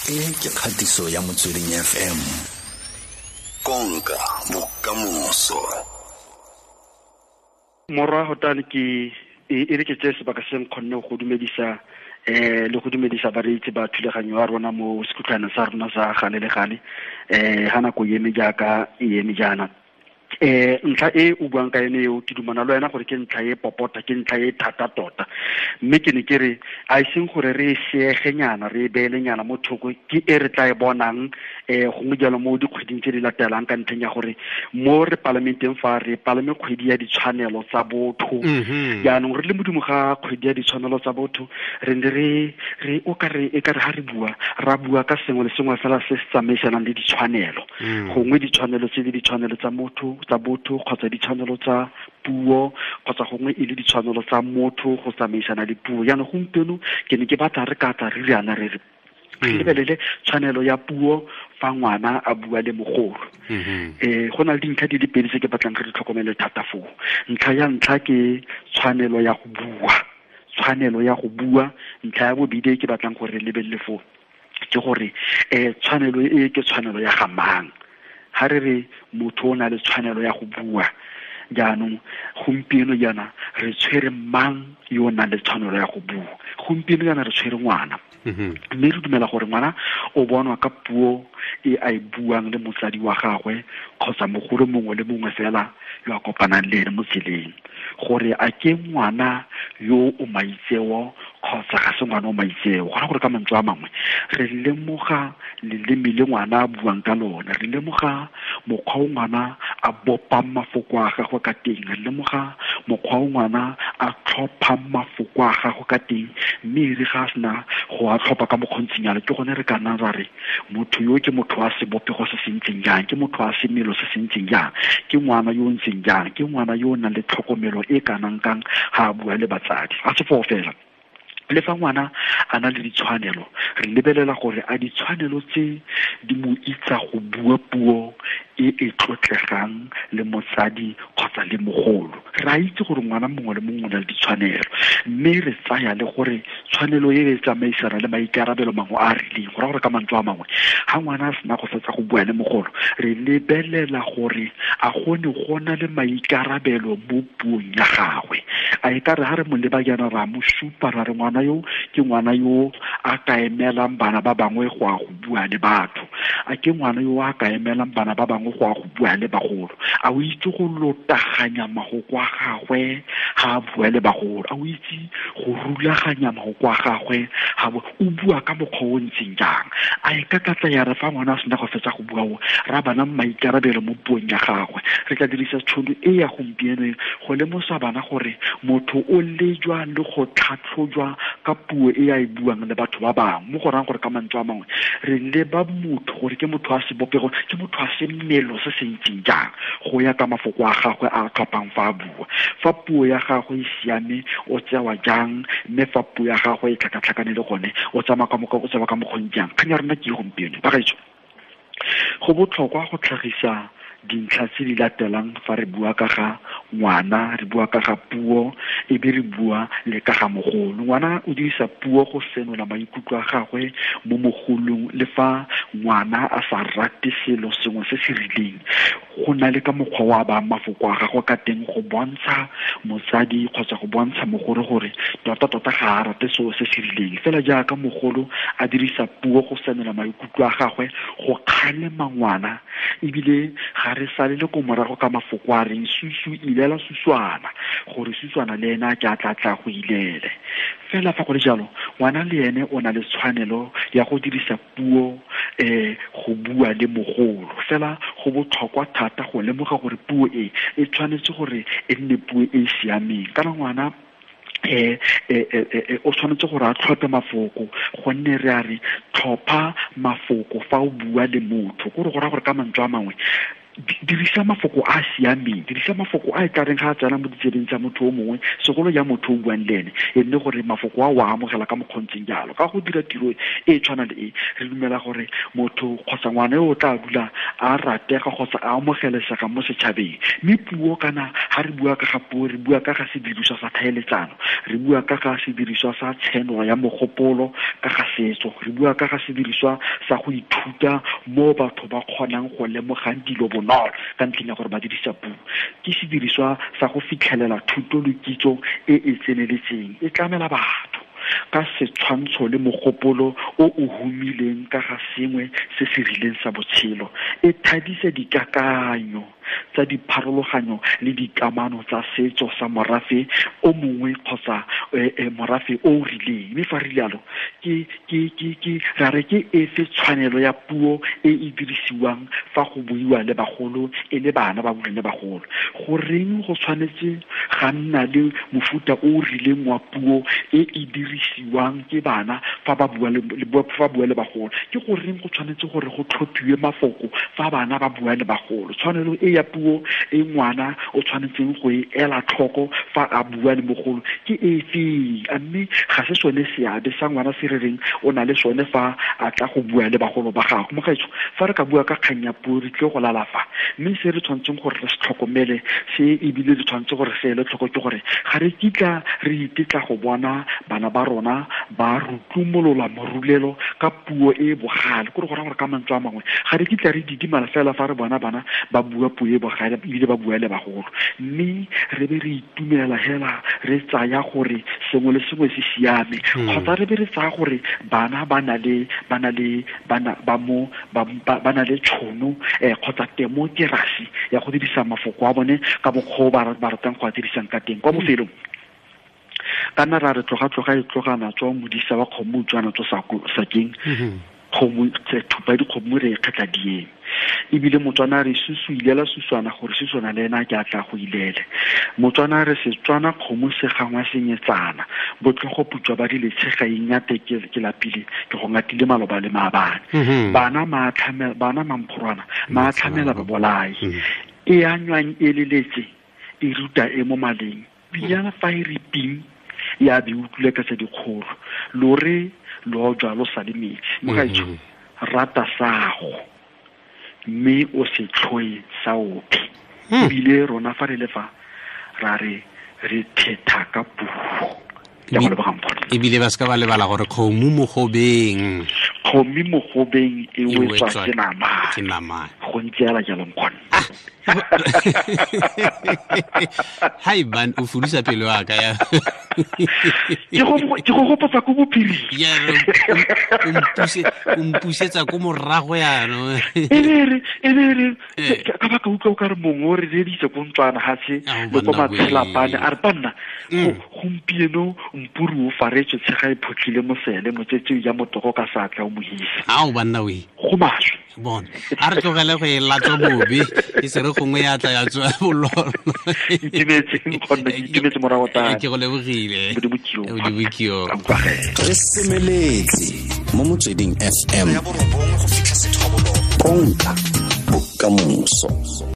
E ke kgatiso ya Motsweding FM. Konka bokamoso. Morwa Hotane, ke e re ke tseye sebaka se nkgonne go dumedisa le go dumedisa bareetsi ba thulaganyo ya rona mo sekhutlhwaneng sa rona sa gale le gale, ha nako e eme jaaka e eme jaana. Ntlha e o buang ka yone eo, ke dumana le wena gore ke ntlha e popota, ke ntlha e thata tota, mme ke ne ke re a e seng gore re e seegenyana, re e beelenyana mo thoko, ke e re tla e bonang gongwe jalo mo dikgweding tse di latelang, ka ntlheng ya gore mo re palamenteng fa re palame kgwedi ya ditshwanelo tsa botho. Jaanong re le modimo ga kgwedi ya ditshwanelo tsa botho, re ne re o ka re e ka re ha re bua, ra bua ka sengwe le sengwe fela se se tsamaisanang le ditshwanelo. Gongwe ditshwanelo tse di ditshwanelo tsa motho, tsa botho, kgotsa ditshwanelo tsa puo, kgotsa gongwe e le ditshwanelo tsa motho go tsamaisana le puo. Jaanong gompieno ke ne ke batla re ka tla re riana re re lebelele tshwanelo ya puo fa ngwana a bua le mogolo. Go na le dintlha di le pedi tse ke batlang re di tlhokomele thata foo. Ntlha ya ntlha ke tshwanelo ya go bua, tshwanelo ya go bua. Ntlha ya bobedi e ke batlang gore re lebelele foo ke gore tshwanelo e ke tshwanelo ya ga mang. Ha re re motho o na le tshwanelo ya go bua, jaanong gompieno jaana re tshwere mang yo o nang le tshwanelo ya go bua? Gompieno jaana re tshwere ngwana. Mme re dumela gore ngwana o bonwa ka puo e a e buang le motsadi wa gagwe kgotsa mogolo mongwe le mongwe fela yo a kopanang le ene mo tseleng, gore a ke ngwana yo o maitseo kgotsa ga se ngwana o maitseo. Go raya gore ka mantswe a mangwe re lemoga leleme le ngwana a buang ka lone, re lemoga mokgwa o ngwana a bopang mafoko a gagwe ka teng, re lemoga mokgwa o ngwana a tlhophang mafoko a gagwe ka teng, mme e re ga a sena go a tlhopha ka mokgontshinyana, ke gone re ka nnang ra re motho yo ke motho wa sebopego se se ntseng jang, ke motho wa semelo se se ntseng jang, ke ngwana yo o ntseng jang, ke ngwana yo o nang le tlhokomelo e kanang kang ga a bua le batsadi. Ga se foo fela, le fa ngwana a na le ditshwanelo, re lebelela gore a ditshwanelo tse di mo itsa go bua puo e e tlotlegang le motsadi kgotsa le mogolo. Re a itse gore ngwana mongwe le mongwe o na le ditshwanelo, mme re tsaya le gore tshwanelo e e tsamaisana le maikarabelo mangwe a a rileng. Go raya gore ka mantswe a mangwe, ga ngwana a sena go fetsa go bua le mogolo, re lebelela gore a gone go na le maikarabelo mo puong ya gagwe. A e ka re ha re mo leba jaana ra mo supa ra re ngwana yo ke ngwana yo a ka emelang bana ba bangwe go ya go bua le batho, a ke ngwana yo a ka emelang bana ba bangwe go ya go bua le bagolo, a o itse go lotaganya mahoko a gagwe ga a bua le bagolo, a o itse go rulaganya mahoko a gagwe ga o bua ka mokgwa o ntseng jang. A e ka tlatla ya re fa ngwana a sena go fetsa go bua o ra bana maikarabelo mo puong ya gagwe. Re tla dirisa tšhono e ya gompieno go lemosa bana gore motho o lejwa le go tlhatlhojwa ka puo e a e buang le batho ba bangwe. Mo go rayang gore ka mantswe a mangwe re leba motho gore ke motho wa sebopego, ke motho wa semelo se se ntseng jang go ya ka mafoko a gagwe a tlhophang fa a bua. Fa puo ya gagwe e siame o tsewa jang, mme fa puo ya gagwe e tlhakatlhakane le gone o tsamaya ka mokgwa, o tsewa ka mokgwa o jang. Kgang ya rona ke e gompieno bagaetsho. Go botlhokwa go tlhagisa dintlha tse di latelang fa re bua ka ga ngwana, re bua ka ga puo, e be re bua le ka ga mogolo. Ngwana o dirisa puo go senola maikutlo a gagwe mo mogolong, le fa ngwana a sa rate selo sengwe se se rileng, go na le ka mokgwa wa ba mafoko a gagwe ka teng go bontsha motsadi kgotsa go bontsha mogolo gore tota-tota ga a rate selo se se rileng. Fela jaaka mogolo a dirisa puo go senola maikutlo a gagwe go kgalema ngwana, ebile ga re sale le ko morago ka mafoko a reng susu ilela suswana, gore suswana le ena ke a tla tla go ilele. Fela fa go le jalo, ngwana le ene o na le tshwanelo ya go dirisa puo go bua le mogolo. Fela go botlhokwa thata go lemoga gore puo e e tshwanetse gore e nne puo e e siameng. Kana ngwana o tshwanetse gore a tlhophe mafoko, gonne re a re tlhopha mafoko fa o bua le motho. Kore go raya gore ka mantswe a mangwe Dirisa mafoko a siameng, dirisa mafoko a e tla reng ga a tsena mo ditsebeng tsa motho o mongwe, segolo ya motho o buang le ene, e nne gore mafoko a o a amogela ka mokgontseng jalo. Ka go dira tiro e tshwana le e, re dumela gore motho kgotsa ngwana yo o tla dula a ratega kgotsa a amogelesega mo setšhabeng. Mme puo kana ga re bua ka ga puo, re bua ka ga sediriswa sa tlhaeletsano, re bua ka ga sediriswa sa tshenolo ya mogopolo ka ga setso, re bua ka ga sediriswa sa go ithuta mo batho ba kgonang go lemogang dilo bonolo ka ntlheng ya gore ba dirisa puo. Ke sediriswa sa go fitlhelela thuto le kitso e e tseneletseng, e tlamela batho ka setshwantsho le mogopolo o o humileng ka ga sengwe se se rileng sa botshelo, e thadisa dikakanyo tsa dipharologanyo le dikamano tsa setso sa morafe o mongwe kgotsa morafe o o rileng. Mme fa re rialo, ke ra re ke efe tshwanelo ya puo e e dirisiwang fa go buiwa le bagolo e le bana ba buang le bagolo? Goreng go tshwanetse ga nna le mofuta o o rileng wa puo e e dirisiwang ke bana fa ba bua le bagolo? Ke goreng go tshwanetse gore go tlhophiwe mafoko fa bana ba bua le bagolo? Tshwanelo e ya puo e ngwana o tshwanetseng go e ela tlhoko fa a bua le mogolo ke efe? A mme ga se sone seabe sa ngwana se re reng o na le sone fa a tla go bua le bagolo ba gagwe. Mogaetsho, fa re ka bua ka kgang ya puo re tlile go lala fa, mme se re tshwanetseng gore re se tlhokomele se ebile re tshwanetse gore se ele tlhoko ke gore ga re kitla re itetla go bona bana ba rona ba rutlumolola morulelo ka puo e bogale. Kore go raya gore ka mantswe a mangwe ga re kitla re didimala fela fa re bona bana ba bua puo e bogale ebile ba bua le bagolo, mme re be re itumela hela re tsaya gore sengwe le sengwe se siame, kgotsa re be re tsaya gore bana ba na le tšhono kgotsa temokerasi ya go dirisa mafoko a bone ka mokgwa o ba ratang go a dirisang ka teng. Kwa bofelong kana ra re tloga e tlogana tswa modisa wa kgomo utswana tswa sakeng, kgomo thupa dikgomo re e kgetla dieng. Ebile Motswana re susu ilela suswana gore suswana le ena ke a tla go ilele. Motswana re Setswana kgomo se gangwa senyetsana, botlhogo putswa ba dile tshega ingate ke lapile ke go ngatile maloba le maabane. Bana bana mamphorwana maatlhamela ba bolai, e a nywang e leletse e ruta e mo maleng, pinyana fa e re ping ya be utlwile ka tse dikgolo, lore lo jwa lo sa le metsi. Mogaetsho, rata sago mme o se tlhoe sa ope. Ebile rona fa re le fa ra re re thetha ka puo. Ebile ba se ka ba lebala gore kgomo mogobeng, kgomo mogobeng e wetswa ke nama, go ntse yala jalo nkgone. Hai ban, o fudisa pelo ya ka ya. Ke go gopotsa ko bophiring. Ya, o mpusetsa ko morago yaanong. E re ka baka utlwa o ka re mongwe o re reditse ko ntswana gatshe le ko matshelapane a re banna gompieno mpuru o faretswe tshega e photlhile mosele motsetse ya motogo ka satla o mohisa. Ao banna we. Go maswe. Bona, a re tlogele go e latswa bobe e se re gongwe ya tla ya tswa bololo. Itumetse morago tane. Ke go lebogile. Modimo. Re semeletse mo Motsweding FM. Konka bokamoso.